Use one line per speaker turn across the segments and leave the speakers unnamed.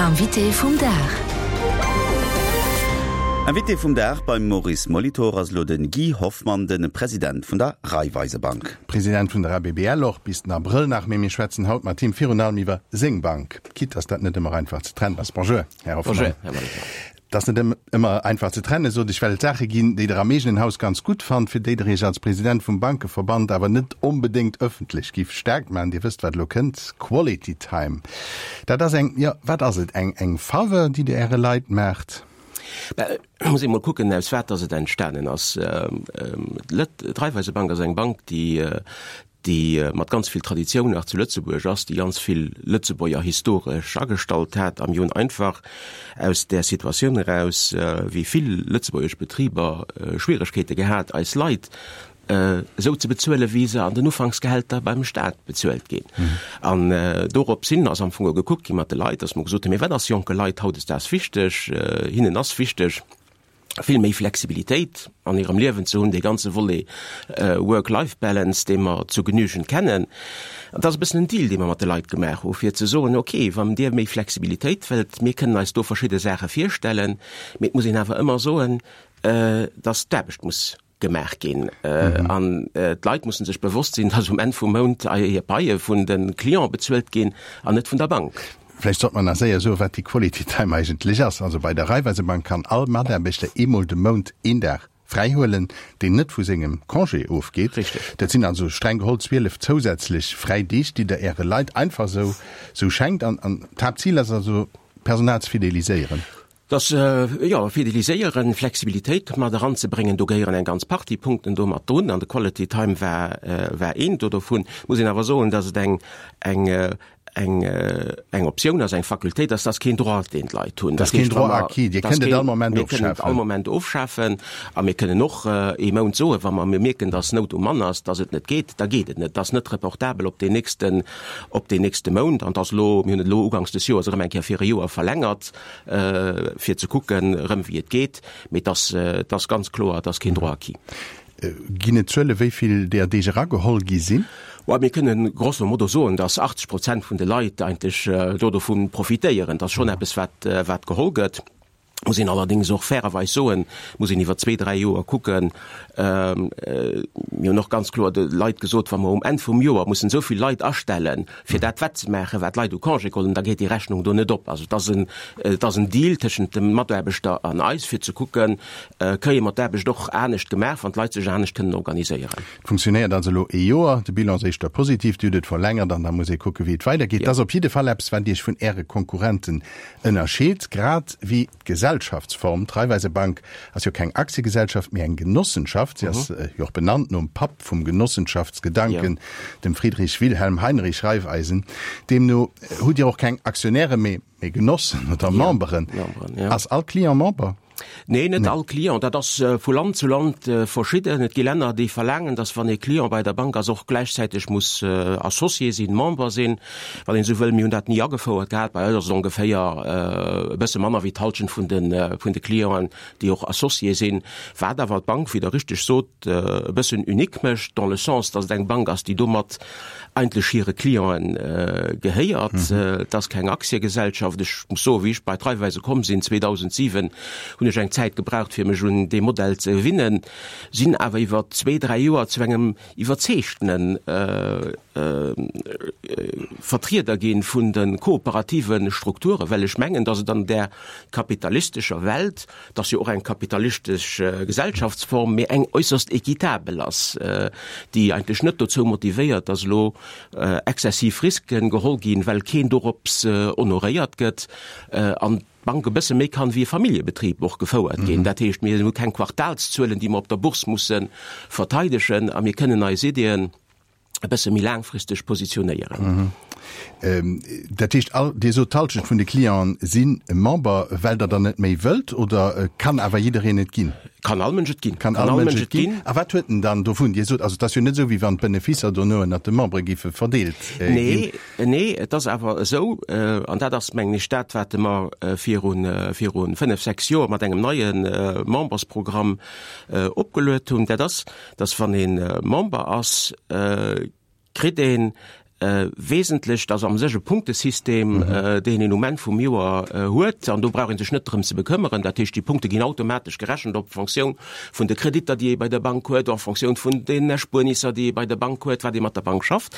Invité vum Dag.
Invité vum Dag beim Maurice Molitor ass elo de Guy Hoffmann, de President vun der Raiffeisebank.
President vun der ABBL och bis den Abrëll nach, mee mir schwätzen haut mat him virun allem iwwer seng Bank, quitte dass dat net ëmmer einfach ze trennen ass. Bonjour, Här Hoffmann.
Bonjour, Här Molitor.
Et ass net ëmmer einfach ze trennen, sot ech, well et Saache ginn, déi Der am eegenen Haus ganz gutt fannt, fir déi Der Iech als President vum Bankeverband awer net onbedéngt ëffentlech giff staark maachen. Dir wësst, wat elo kënnt, Quality Time. Dat ass eng, jo, wat ass et, eng, eng Faveur, déi Der Äre Leit maacht?
Bah, et muss ee mol kucken, aus wat dass et entstanen ass. D'Raiffeisebank ass eng Bank, déi, déi mat ganz vill Traditioun nach zu Lëtzebuerg ass, déi ganz vill Lëtzebuerger historesch agestallt hat a mir hunn einfach aus där Situatioun eraus, wéi vill lëtzebuergesch Betriber Schwieregkeete gehat, eis Leit esou ze bezuelen, wéi se an den Ufanksgehälter beim Staat bezuelt ginn. An dorops hin ass am Fong gekuckt gi mat de Leit, datt mer gesot hunn, mee wat ass jonke Leit hautdesdaags wichteg? Hinnen ass wichteg, vill méi Flexibilitéit an hirem Liewen ze hunn, dee ganze Volet Work-Life-Balance, dee mer zu Genügend kennen. An dat ass e bëssen en Deal, dee mer mat de Leit gemaach hu fir ze soen, okay, wann Dir méi Flexibilitéit wëllt, mir kënnen eis do verschidde Saache virstellen, mee et muss een awer ëmmer soen, dass d'Aarbecht muss gemaach ginn. An d'Leit mussen sech bewosst sinn, dass um Enn vum Mount hir Paie vun de Cliente bezuelt ginn an net vun der Bank.
Vläicht sollt mer nach séier soen, wat déi Quality Time eigentlech ass. Also bei der Raiffeisebank kann all Mataarbechter eemol de Mount een Dag fräi huelen, deen net vu sengem Congé ofgeet.
Richtig.
Dat sinn also streng geholl 12 zousätzlech fräi Deeg, déi Der Äre Leit einfach esou esou schenkt. An d'Haaptzil ass also, d'Personal ze fideliséieren.
Dass, jo, fideliséieren, Flexibilitéit mat eranzebréngen, do gehéieren eng ganz Partie Punkten do mat drun, an de Quality Time war, war een do dovun. Muss een awer soen, dass et eng, eng, eng, eng Optioun ass, eng Facultéit ass, dat ass keen Droit, deen d'Leit hunn.
Dat ass keen Droit acquis, Dir kënnt et all Moment
ofschafen. Mir kënnen et all Moment ofschafen a mir kënnen och ee Mount soen, wa mer mierken, dass Nout um Mann ass, dass et net geet, da geet et net. Dat ass net reportabel op deen nächsten, op deen nächste Mount. An et ass elo, mir hunn et elo uganks des Joers erëm eng Kéier fir e Joer verlängert. fir ze kucken erëm wéi et geet, mee et ass, et ass ganz kloer, et ass keen Droit acquis.
Ginn et Zuele wéi vill deeër Deeg erageholl gi sinn?
Well mir kënnen grosso modo soen, datt 80 Prozent vun de Leit eigentlech do dovun profitéieren. Dat ass schonn eppes wat, wat geholl gëtt. Muss een allerdéngs och fairerweis soen, muss een iwwer zwee, dräi Joer kucken. Mir hunn och ganz kloer de Leit gesot, wa mer um Enn vum Joer mussen esou vill Leit astellen, fir dat wettzemaachen, wat d'Leit u Congé geholl hunn, da geet déi Rechnung do net op. Also et ass en, et ass en Deal tëschent dem Mataarbechter an eis, fir ze kucken, kréie mer d'Aarbecht och anescht gemaach, wann d'Leit sech anescht kënnen organiséieren.
Et funktionéiert also elo ee Joer, de Bilan ass éischter positiv, Dir hutt et verlängert an da muss ee kucken, wéi et weidergeet. Et ass op jidde Fall eppes, wat Iech vun Äre Konkurrenten ënnerscheet, grad wéi d'Gesellschaftsform. D'Raiffeisebank ass jo keng Aktiegesellschaft, mee eng Genossenschaft. Si ass jo och benannt nom Papp vum Genossenschaftsgedanken, dem Friedrich Wilhelm Heinrich Raiffeisen. Deemno hutt Dir och keng Aktionäre, mee Genossen oder Memberen. Ass all Client Member?
Nee, net all Client. Dat ass vu Land zu Land verschidden. Et gi Länner, déi verlaangen, datt wann ee Client bei der Bank ass, och gläichzäiteg muss Associé sinn, Member sinn, wann een esou wëll. Mir hunn dat ni agefouert gehat. Bei eis ass et ongeféier e bësse manner wéi d'Hallschent vun de vun de Clienten, déi och Associé sinn. Wat awer d'Bank, wéi Der richteg sot, e bëssen unique mécht, dans le sens, datt et eng Bank ass, déi domat eigentlech hire Clienten gehéiert. Et ass keng Aktiegesellschaft. Ech muss soen, wéi ech bei d'Raiffeise komm sinn 2007, hunn ech eng Zäit gebraucht, fir mech un dee Modell ze gewinnen, sinn awer iwwer zwee, dräi Joer zu engem iwwerzeegtene Vertrieder gi vun de kooperative Strukturen, well ech mengen, datt et an där kapitalistescher Welt, Et ass jo och eng kapitalistesch Gesellschaftsform, mee eng äusserst équitabel ass, déi eigentlech net dozou motivéiert, dass elo exzessiv Risken geholl ginn, well keen dorops honoréiert gëtt an d'Bank e bësse méi kann wéi e Familljebetrib och gefouert ginn. Dat heescht, mir hu keng Quartalszuelen, déi mer op der Bourse musse verteidegen a mir kënnen eis Iddien, e bësse méi laangfristeg positionéieren.
Dat heescht, all, Dir sot, d'Hallschent vun de Clienten si Member, well Der der net méi wëllt, oder kann awer jiddereen et ginn?
Kann all Mënsch et ginn.
Kann all Mënsch et ginn. A wat huet en dann dovun? Dir sot, also et ass jo net esou, wéi wann d'Beneficer dono ënnert de Membere géife verdeelt ginn.
Nee, nee, et ass awer esou, an dat ass, mengen ech, dat, wat mer viru, viru fënnef, sechs Joer mat engem neie Membersprogramm opgeluet hunn, dat ass, dass wann ee Member ass, kritt een. Wesentlech, dat ass am sech e Punktesystem, deen een um Enn vum Joer huet, an do brauch ee sech net drëm ze bekëmmeren. Dat heescht, déi Punkte ginn automatesch gerechent op Fonctioun vun de Kreditter, déi ee bei der Bank huet, en Fonctioun vun den Erspuernisser, déi ee bei der Bank huet, wat ee mat der Bank schafft.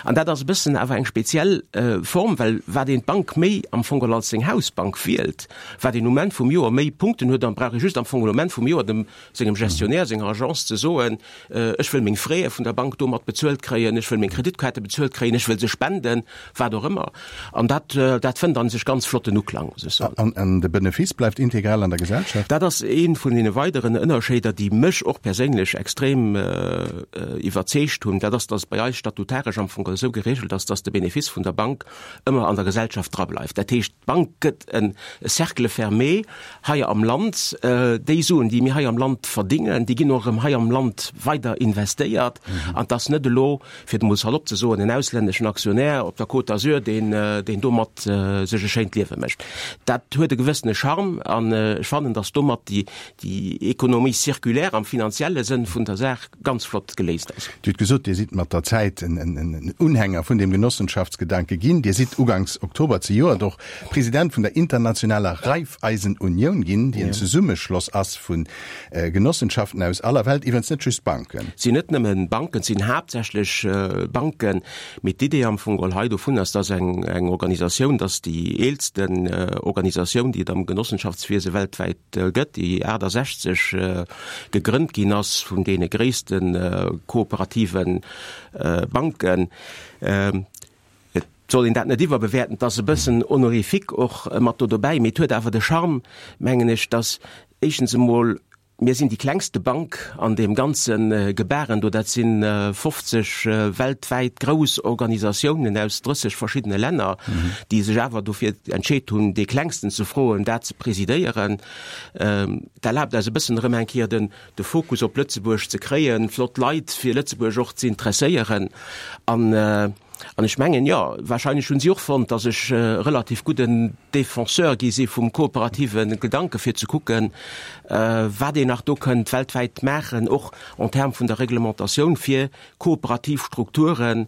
An dat ass e bëssen awer eng speziell Form, well wat een d'Bank méi am Fong geholl als seng Hausbank wielt, wat een um Enn vum Joer méi Punkten huet, dann brauch ee just am Fong geholl um Enn vum Joer dem sengem Gestionnaire, senger Agence ze soen, Ech wëll meng Fräe vun der Bank domat bezuelt kréien, ech wëll meng Kreditkaarte bezuelt kréien, ech wëll se spenden, wat och ëmmer. An dat, dat fënnt a sech ganz flotten Uklang, muss ech soen.
An, an de Benefice bleift integral an der Gesellschaft?
Dat ass ee vun deene weideren Ënnerscheeder, déi mech och perséinlech extrem iwwerzeegt hunn. Dat ass, dass et bei eis statutaresch am Fong esou geregelt ass, dass de Benefice vun der Bank ëmmer an der Gesellschaft drableift. Dat heescht, D'Bank gëtt e Cercle fermé hei am Land. Déi Suen, déi mir hei am Land verdingen, déi ginn och erëm hei am Land weider investéiert. An et ass net elo, fir et emol salopp ze soen, en auslänneschen Aktionär op der Côte d'Azur, deen, deen domat sech e schéint Liewe mécht. Dat huet e gewëssene Charme an ech fannen, datt domat déi, déi Économie circulaire am finanzielle Sënn vun der Saach ganz flott geléist ass.
Dir hutt gesot, Dir sidd mat der Zäit en Unhänger vun deem Genossenschaftsgedanke ginn. Dir sidd uganks Oktober zejoert och President vun der internationaler Raiffeisen-Unioun ginn, déi en Zesummeschloss ass vu Genossenschaften aus aller Welt, iwwerens net just Banken.
Et sinn net nëmmen Banken, et sinn haaptsächlech Banken, mee d'Idee am Fong geholl hei dovun ass, dass eng Organisatioun, dass déi eelsten Organisatioun, déi et am Genossenschaftswiese weltwäit gëtt, déi 68 gegrënnt ginn ass vun deene gréisste kooperative Banken. Et soll een dat net iwwerbewäerten, et ass e bëssen honorifique och mat do dobäi, mee et huet awer de Charme, mengen ech, datt éischtens emol mir sinn déi klengste Bank an deem ganze Gebaren do, dat si 50 weltwäit grouss Organisatiounen aus 30 verschiddene Länner, déi sech awer dofir entscheet hunn, dee klengsten ze froen, dat ze presidéieren. Dat erlaabt eis e bëssen erëm eng Kéier den de Fokus op Lëtzebuerg ze kréien, flott Leit fir Lëtzebuerg och ze interesséieren. An an ech mengen, jo, wahrscheinlech hunn si och fonnt, datt ech e relativ gudden Défenseur gi si vum kooperative Gedanke fir ze kucken, wat een nach do kënnt weltwäit maachen, och en termes vun der Reglementatioun, fir kooperativ Strukture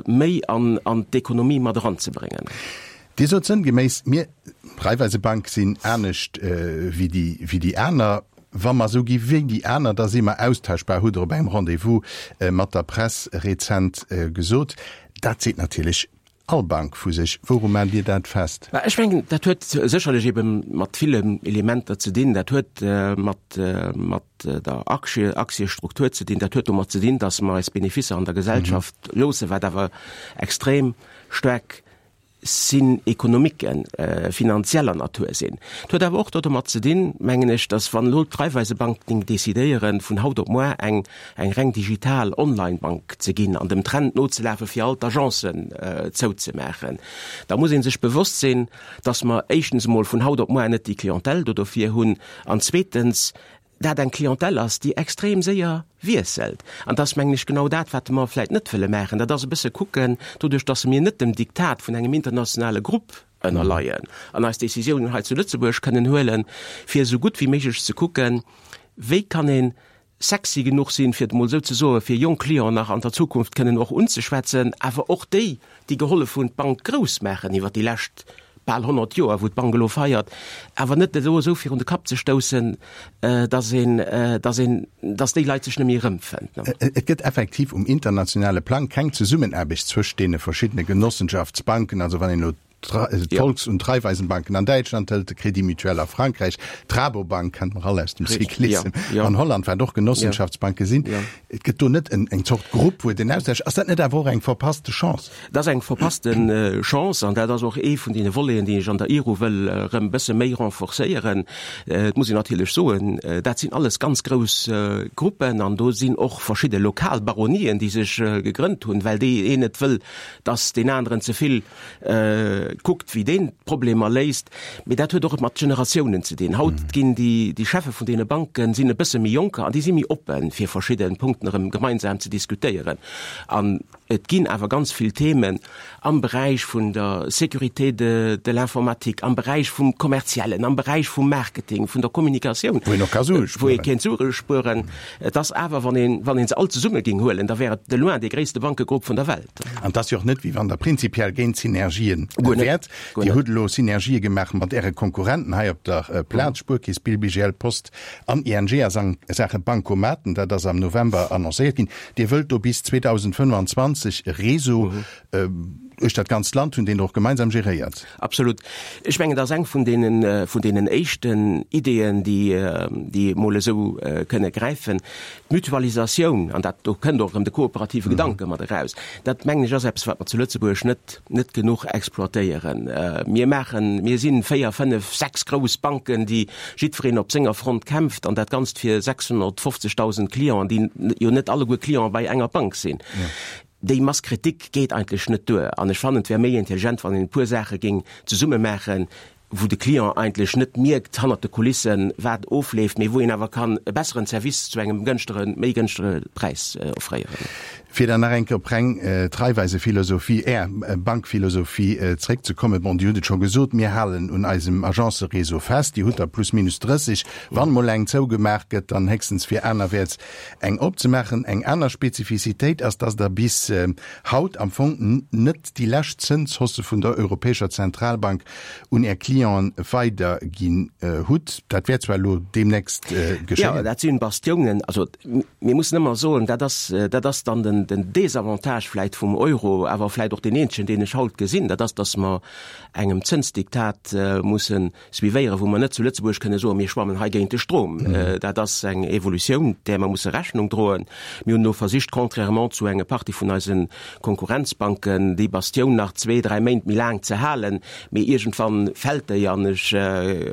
méi an an d'Ekonomie mat eranzebréngen.
Dir sot sënngeméiss, mir, d'Raiffeisebank, sinn anescht wéi déi, wéi déi aner. Wa mer esou gi wéi déi aner, da si mer austauschbar, hutt Der op engem Rendez-vous mat der Press rezent gesot. Dat seet natierlech all Bank vu sech. Wouru maacht Dir dat fest?
Mä ech mengen, dat huet sécherlech ebe mat villen Elementer ze dinn. Dat huet mat, mat der Aktie, Aktiestruktur ze dinn. Dat huet domat ze dinn, datt mer eis Beneficer an der Gesellschaft loossen, wat awer extrem staark sinn Ekonomiken, finanzieller Natur sinn. Et huet awer och domat ze dinn, mengen ech, datt wann elo d'Raiffeisebank géing decidéieren, vun haut op muar eng eng reng digital Online-Bank ze ginn an dem Trend nozelafe fir all d'Agencen zouzemaachen, da muss ee sech bewosst sinn, datt mer éischtens emol vun haut op muar net déi Clientèle do dofir hunn an zweetens, dat eng Clientèle ass, déi extrem séier wiesselt. An dat ass, mengen ech, genau dat, wat mer vläicht net wëlle maachen. Dat ass e bësse kucken, doduerch datt mir net dem Diktat vun engem internationale Grupp ënnerleien an eis Décisiounen hei zu Lëtzebuerg kënnen huelen, fir esou gutt wéi méiglech ze kucken, wéi kann ee sexy genuch sinn, fir et emol esou ze soen, fir jonk Clienten nach an der Zukunft kënnen och unzeschwätzen, awer och déi, déi gehollef hunn, d'Bank grouss maachen iwwert déi lescht bal 100 Joer, wou d'Bank elo feiert, awer net elo esou virun de Kapp ze stoussen, dass een, dass een, dass déi Leit sech net méi erëmfënnt.
Et gëtt effektiv um internationale Plang keng Zesummenaarbecht zwëscht deene verschiddene Genossenschaftsbanken, also wann een elo d'Volks und Raiffeisenbanken an Däitschland hëlt, de Crédit Mutuel a Frankräich, d'Rabobank kennt mer all aus dem Cyclissem, an Holland, wat och Genossenschaftsbanke sinn. Et gëtt do net eng Zort Grupp, wou et en Austausch. Ass dat net awer och eng verpasste Chance?
Dat ass eng verpasste Chance an dat ass och ee vun deene Voleten, déi ech an der IRU wëll erëm e bësse méi renforcéieren. Et muss een natierlech soen, dat sinn alles ganz grouss Gruppen an do sinn och verschidde lokal Baronien, déi sech gegrënnt hunn, well dee een net wëll, dass deen aneren ze vill kuckt, wéi deen d'Problemer léist. Mee dat huet och mat Generatiounen ze dinn. Haut ginn déi, déi Cheffe vun deene Banken sinn e bësse méi jonker an déi si méi oppen, fir verschidde Punkten erëm gemeinsam ze diskutéieren. An. Et ginn awer ganz vill Themen am Beräich vun der Sécurité de de l'informatique, am Beräich vum Kommerziellen, am Beräich vum Marketing, vun der Kommunikatioun,
Wou een och ka Sue
wou ee kéint Sue spueren. Et ass awer, wann een, wann ee se all zesumme géing huelen, da wär et de loin dee gréisste Bankegrupp vun der Welt.
An et ass jo och net, wéi wann Der prinzipiell géint Synergien
Guer net,
wäert.
guer
Dir
net.
hutt elo Synergië gemaach mat Äre Konkurrenten hei op der Plaz, Spuerkeess, Bill, BGL, Post an ING a Saache Bancomaten. Dat ass am November annoncéiert ginn. Dir wëllt do bis 2025 e Réseau duerch dat ganzt Land hunn, deen Der och gemeinsam geréiert.
Absolut. Ech mengen, dat ass eng vun deenen, vun deenen éischten Ideeën, déi, déi emol esou kënne gräifen. D'Mutualisatioun, an dat, do kënnt och erëm de kooperative Gedanke mat eraus, dat mengen ech ass eppes, wat mer zu Lëtzebuerg net, net genuch exploitéieren. Mir maachen, mir si véier, fënnef, sechs grouss Banken, déi jiddwereen op senger Front kämpft, an dat Ganzt fir 650.000 Clienten, déi jo net alleguer Cliente bei enger Bank sinn. Déi Masse critique geet eigentlech net duer. An ech fannen, et wär méi intelligent, wann een e puer Saache géing zesumme maachen, wou de Client eigentlech net mierkt hannert de Kulissen, wat ofleeft, mee wou een awer kann e besseren Service zu engem gënschteren, méi gënschtere Präis offréieren.
Fir dann nach eng Kéier op reng d'Raiffeisephilosophie, Är Bankphilosophie zréckzekommen, bon, Dir hutt et scho gesot, mir halen un eisem Agencëréseau fest, Dir hutt der plus minus 30. Wann mol eng zougemaach gëtt, dann héchstens fir anerwäerts eng opzemaachen. Eng aner Spezifizitéit ass, dass Der bis haut am Fong net déi lescht Zënshausse vun der Europäescher Zentralbank un Är Clienten weiderginn hutt. Dat wäert zwar elo deemnächst geschéien.
Jo, dat sinn Bastiounen. Also mir mussen ëmmer soen, dat ass, dat ass dann den, den Désavantage vläicht vum Euro, awer vläicht och deen eenzegen, deen ech haut gesinn, dat ass, dass mer engem Zënsdiktat mussen suivéieren, wou mer net zu Lëtzebuerg kënne soen, mir schwammen hei géint de Strom. Dat ass eng Evolutioun, där mer musse Rechnung droen. Mir hunn elo versicht, contrairement zu enge Partie vun eise Konkurrenzbanken, déi Bastioun nach zwee, dräi Méint méi laang ze halen, mee iergendwann fält déi an ech,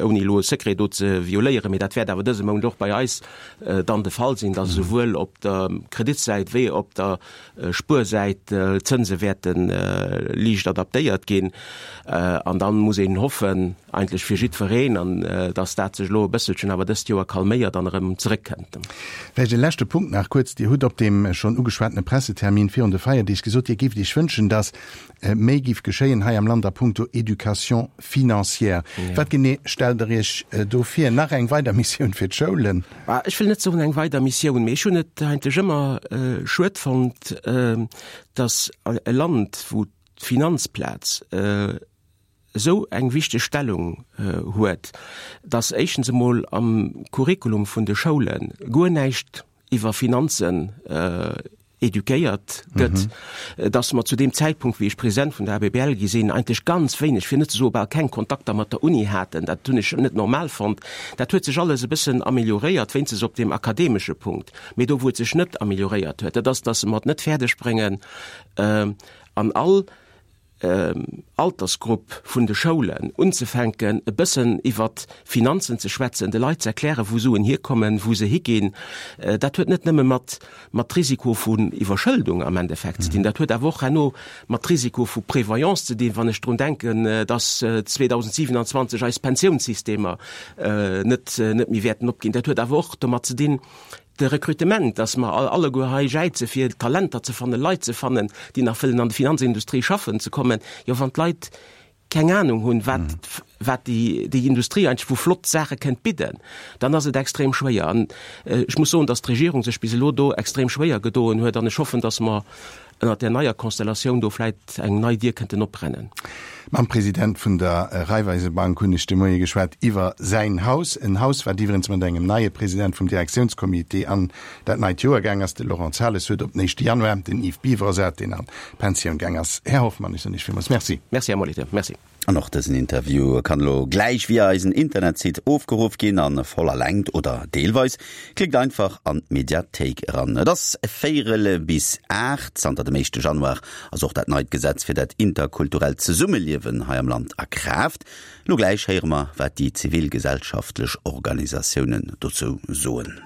ouni elo e Secret do ze violéieren, mee dat wäert awer dëse Mount och bei eis dann de Fall sinn, dass esouwuel op der Kreditsäit wéi op der Spuersäit d'Zënse wäerte liicht adaptéiert ginn. An da muss een hoffen, eigentlech fir jiddwereen, an dass dat sech elo e bësselchen awer dëst Joer calméiert an erëm zeréckkënnt.
Vläicht e leschte Punkt nach kuerz. Dir hutt op deem schonn ugeschwatene Pressetermin virun de Feierdeeg gesot, Dir géift Iech wënschen, dass méi géif geschéien hei am Land a puncto Éducation financière. Wat genee stellt Der Iech do vir? Nach eng weider Missioun fir d'Schoulen?
Ech wëll net soen eng weider Missioun, mee ech hunn et eigentlech ëmmer schued fonnt, dass e Land, wou d'Finanzplaz esou eng wichteg Stellung huet, dass éischtens emol am Curriculum vun de Schoule guer näischt iwwer Finanzen eduquéiert gëtt, dass mer zu deem Zäitpunkt, wéi ech President vun der ABBL gi sinn, eigentlech ganz wéineg, fir net ze soe bal keng Kontakter mat der Uni haten. Dat hunn ech net normal fonnt. Dat huet sech alles e bëssen amelioréiert, wéinstens op deem akademesche Punkt. Mee do, wou et sech net amelioréiert huet, dat ass, dass mer et net fäerdeg bréngen, an all Altersgrupp vun de Schoulen unzefänken, e bëssen iwwert Finanzen ze schwätzen, de Leit ze erklären, wou Suen hierkommen, wou se higinn. Dat huet net nëmme mat mat Risiko vun Iwwerschëldung am Endeffekt ze dinn, dat huet awer och herno mat Risiko vu Prévoyance ze dinn, wann ech drun denken, dass 2027 eis Pensiounssystemer net net méi wäerten opginn. Dat huet awer och domat ze dinn, De Recrutement, dass mer alleguer hei jäize fir Talenter ze fannen, Leit ze fannen, déi nach wëllen an de Finanzindustrie schaffen ze kommen. Jo, wann d'Leit keng Ahnung hunn, wat, wat déi, déi Industrie eigentlech vu flott Saache kënnt bidden, dann ass et extrem schwéier. An ech muss soen, dass d'Regierung sech bis elo do extrem schwéier gedoen huet an ech hoffen, dass mer ënnert där neier Konstellatioun do vläit eng nei Dier kënnten oprennen.
Mam President vun der Raiffeisebank hunn ech de Moie geschwat iwwer säin Haus. En Haus, wat iwwerens mat engem neie President vum Direktiounscomité an dat neit Joer gaang ass. De Laurent Zales huet op den éischte Januar den Yves Biver ersat, deen an d'Pensioun gaang ass. Här Hoffmann, ech soen Iech villmools Merci.
Merci, Här Molitor. Merci.
An och dësen Interview kann elo gläich via eisen Internetsite ofgeruff ginn, a voller Längt oder deelweis. Klickt einfach an d'Mediathéik eran. Et ass véierel bis 8. Zanter dem éischte Januar ass och dat neit Gesetz fir dat interkulturellt Zesummeliewen hei am Land a Kraaft. Elo gläich héiere mer, wat déi zivilgesellschaftlech Organisatiounen dozou soen.